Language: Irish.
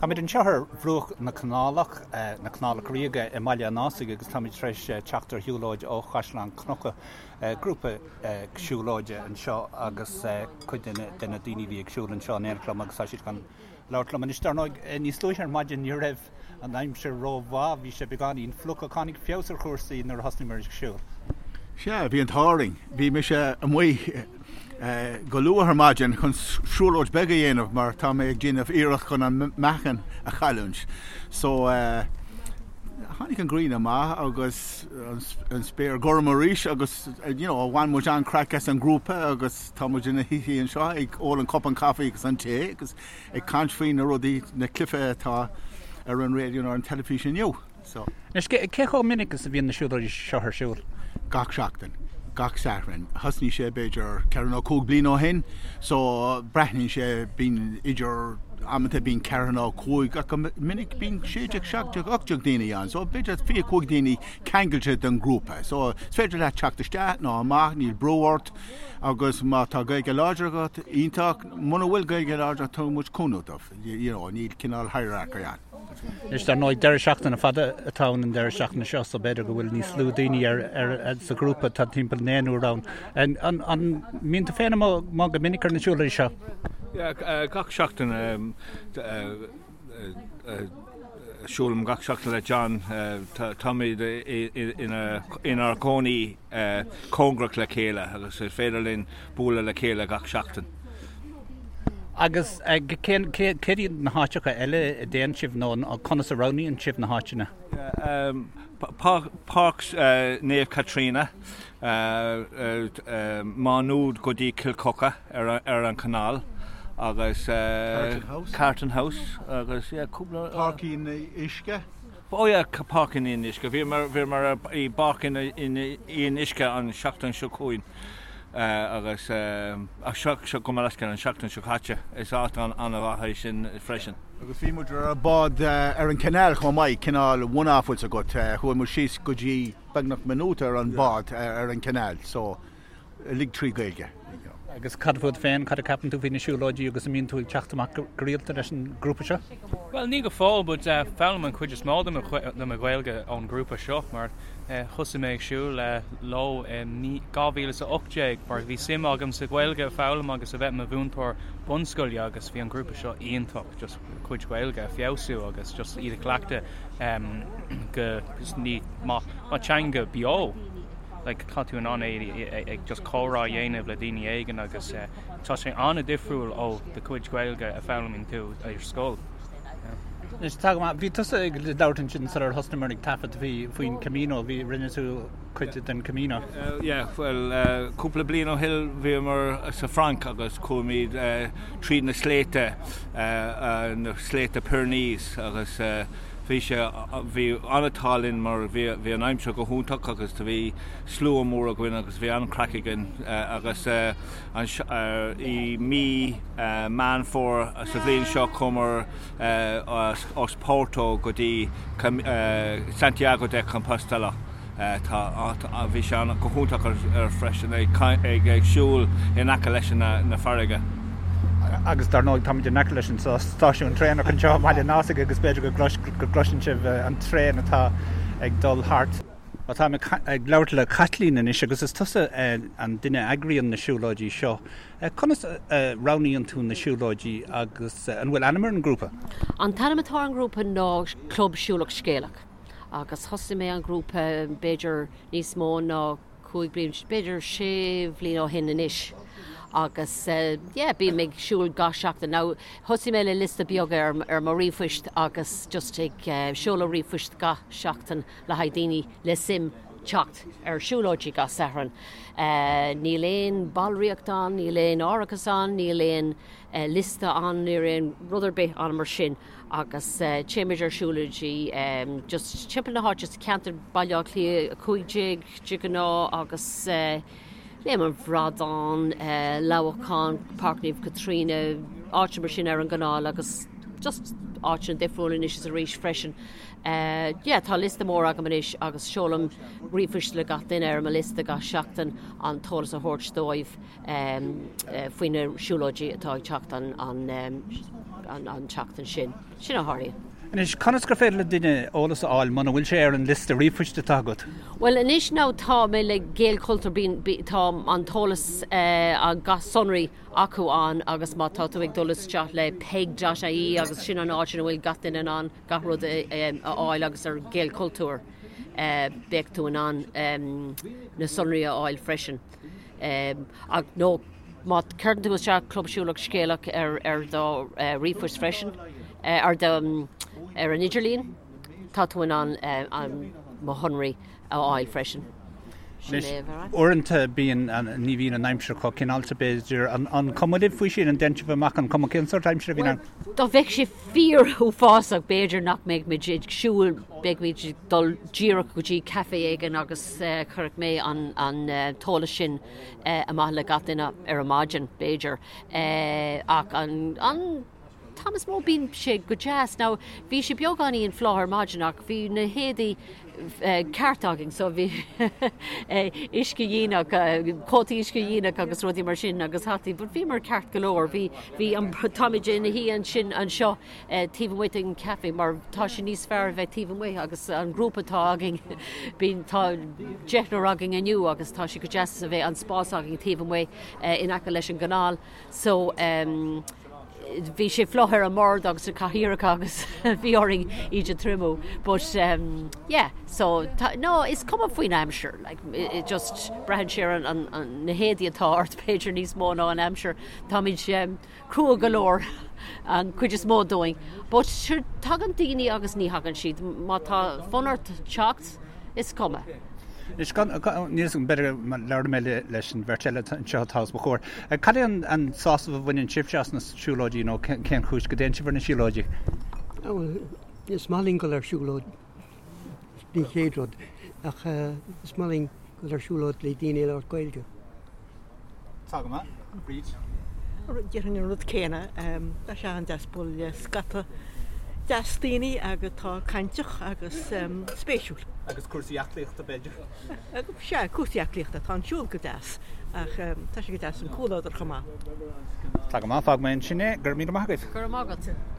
Táimid anseo ar bhruach na Canálach, na Canálach Ríoga i mBaile an Ásaigh agus táimid tar éis teacht ar shiúlóid ó Chaisleán Cnucha, grúpa siúlóide anseo agus cuid de na daoine a bhí ag siúl anseo in éineacht liom agus tá siad chun labhairt liom anois. Dar ndóigh, níos luaithe ar maidin ní raibh an aimsir rómhaith, bhí sé beagáinín fliuch ach tháinig feabhas ar chúrsaí nuair a thosnaíomar ag siúl. Sea, bhí an t-ádh orainn. Bhí mise amuigh. go luath ar maidin chun siúlóid beag a dhéanamh mar tá mé ag déanamh iarracht chun an meáchan a chailliúint. So tháinig an ghrian amach agus an spéir gorm arís agus you know bhain muid an-craic as an grúpa agus tá muid ina shuí anseo ag ól an cupán caife agus an tae agus ag caint faoi na rudaí, na cluichí atá ar an raidió nó ar an teilifís inniu. So. Anois, cé chomh minic is a bhíonn na siúlóidí seo ar siúl? Gach seachtain. Gach Satharn. Thosnaigh sé b'fhéidir ceithre nó cúig bliain ó shin so breathnaíonn sé, bíonn idir, amanta bíonn ceithre nó cúig ach go minic bíonn 16, 17, 18 daoine ann so b'fhéidir 25 daoine ceangailte den ghrúpa. So is féidir leat teacht isteach nó amach, níl brú ort agus má tá Gaeilge láidir agat, iontach, muna bhfuil Gaeilge láidir tugann muid cúnamh dóibh, you know, níl cineál hierarchy ann. Anois, dar ndóigh, deireadh seachtaine fada atá ann an deireadh seachtaine seo, so b'fhéidir go bhfuil níos lú daoine ar, ar, sa ghrúpa, tá timpeall naonúr ann. An, an, an mbíonn tú féin amuigh go minic ar na siúlóidí seo? Yeah, gach seachtain. Siúlaim gach seachtain le John. Táimid inár gcónaí cóngarach le chéile agus is féidir linn bualadh le chéile gach seachtain. Agus céard iad na háiteacha eile a dtéann sibh nó conas a roghnaíonn sibh na háiteanna? Páirc Naomh Caitríona, Má Nuad go dtí Cill Choca ar an chanáil agus Carton House agus cúpla. Páirc Fhionnuisce. Oh yeah, Páirc an Fhionnuisce. Bhíomar i bPáirc an Fhionnuisce an seachtain seo chugainn agus seo go leithscéal an seachtain seo caite. Is áit an-mhaith é sin freisin. Agus bhí muid ar bád ar an canal chomh maith, cineál one-off bhfuil 's agat. Chuaigh muid síos go dtí beagnach minúta ar an bád ar an canal so uilig trí Gaeilge. Agus cad fút féin, cad a ceapann tú faoi na siúlóidí agus an mbíonn tú ag teacht amach go rialta leis an grúpa seo? Bhuel, ní go fóill, but foghlaim an chuid is mó de mo Ghaeilge ón grúpa seo mar thosaigh mé ag siúl leo i 2018 mar bhí suim agam sa Ghaeilge a foghlaim agus a bheith i mo mhúinteoir bunscoile agus bhí an grúpa seo iontach just cuid Gaeilge a feabhsú agus just iad a chleachtadh go ní mar teanga beo. like tá tú in ann é ag just comhrá a dhéanamh le daoine éigin agus tá sé an-difriúil ó do chuid Gaeilge a foghlaimíonn tú ar scoil. Anois tá go maith. Bhí tusa ag labhairt ansin sular thosnaíomar ag taifead faoi faoin Camino, bhí rinne tú cuid den Camino. Yeah, bhuel cúpla bliain ó shin bhíomar sa Frainc agus chuaimid tríd na sléibhte, na sléibhte Pyrenees agus Bhí sé, bhí an-t-ádh linn mar bhí, bhí an aimsir go hiontach agus do bhí slua mór againn agus bhí an-chraic againn agus i mí Meán Fómhair sa bhliain seo chuamar as Porto go dtí Santiago de Compostela. Tá, bhí sé an, go hiontach ar freisin ag, ag siúl in aice leis na farraige. Agus dar ndóigh táimid in aice leis an stáisiún traenach anseo i mBaile an Ásaigh agus b'fhéidir go gcloiseann sibh an traein atá ag dul thart. Táim ag labhairt le Caitlín anois agus is tusa an duine a eagraíonn na siúlóidí seo. Conas a roghnaíonn tú na siúlóidí agus an bhfuil ainm ar an ngrúpa? An t-ainm atá ar an ngrúpa ná Club Siúlach Scéalach. agus thosaigh mé an grúpa b'fhéidir níos mó ná 5 bliain, b'fhéidir 6 bhliain ó shin anois agus yeah bím ag siúl gach seachtain. Now thosaigh mé le liosta beag ar ar mo ríomhphoist agus just ag seoladh ríomhphoist gach seachtain le haghaidh daoine le suim teacht ar siúlóidí gach Satharn. Níl aon ballraíocht ann, níl aon árachas ann, níl aon liosta ann, níl aon rud ar bith ann mar sin. agus téimid ar siúlóidí just timpeall na háite sa cheantar Baile Átha Cliath 15 de ghnáth agus Léim an Bhradáin, Leamhcán, Páirc Naomh Caitríona, áiteanna mar sin ar an gcanáil agus just áiteanna difriúla anois is arís freisin. Yeah, tá liosta mór agam anois agus seolaim ríomhphoist le gach duine ar mo liosta gach seachtain an t-eolas a thabhairt dóibh. faoi na siúlóidí atá ag teacht an an tseachtain sin. Sin a tharlaíonn. Anois, conas gur féidir le duine eolas a fháil muna bhfuil sé ar an liosta ríomhphoist atá agat? Bhuel, anois now tá mé le Gaelchultúr, bíonn, tá an t-eolas, an gach sonraí acu ann agus má tá tú ag dul isteach le peig.ie agus sin an áit ina bhfuil gach duine in ann gach rud a fháil agus ar Gaelchultúr beidh tú in ann na sonraí a fháil freisin. Ach nó má chuireann tú isteach Club Siúlach Scéalach ar ar do ríomhphost freisin, ar do ar an idirlíon, tá tú in ann mo shonraí a fháil freisin. Sin é a bheith. Uaireanta bíonn, ní bhíonn an aimsir chomh cineálta b'fhéidir. An cuma libh faoi sin? An dtéann sibh amach an cuma cén sórt aimsire a bhíonn ann? Dá mbeadh sé fíor uafásach b'fhéidir nach mbeadh muid ag siúl, beidh muid ag dul díreach go dtí caife éigin agus chuirfeadh mé an an t-eolas sin amach le gach duine ar an maidin b'fhéidir. Ach an an t-am is mó bíonn sé go deas. Now bhí sé beagáinín fliuch ar maidin ach bhí na héadaí ceart againn so bhí uiscedhíonach, cótaí uiscedhíonach agus rudaí mar sin agus hataí, but bhíomar ceart go leor. Bhí, bhí an, táimid ina shuí ansin anseo taobh amuigh den caife mar tá sé níos fearr a bheith taobh amuigh agus an grúpa atá againn, bíonn, tá deichniúr againn inniu agus tá sé go deas a bheith an spás againn taobh amuigh in aice leis an gcanáil. So, bhí sé fliuch ar an mbord agus na cathaoireacha agus bhí orainn iad a triomú but um, yeah so tá, no is cuma faoin aimsir like it just braitheann sé ar an, an, an, na héadaí atá ort b'fhéidir níos mó ná an aimsir táimid um, crua go leor an cuid is mó dúinn but sure tagann daoine agus ní thagann siad má tá fonn ort teacht is cuma. Anois, níl 'fhios agam, b'fhéidir labhróidh mé leis an bheirt eile anseo atá os mo chomhair. Cad é an sásamh a bhaineann sibhse as na siúlóidí nó cén chúis go dtéann sibh ar na siúlóidí? Bhuel, is maith linn dul ar siúlóid, den chéad rud, ach is maith linn dul ar siúlóid le daoine ag labhairt Gaeilge. Tá go maith. Bríd? Déarfainn an rud céanna. Tá sé an-deas bualadh le scata deas daoine agus atá cainteach agus spéisiúil. Agus cúrsaí aclaíochta, b'fhéidir? Sea, cúrsaí aclaíochta. Tá an siúl go deas ach tá sé go deas an comhluadar chomh maith. Tá go maith. Fágfaidh mé ansin é. Go raibh míle maith agaibh. Go raibh maith agat.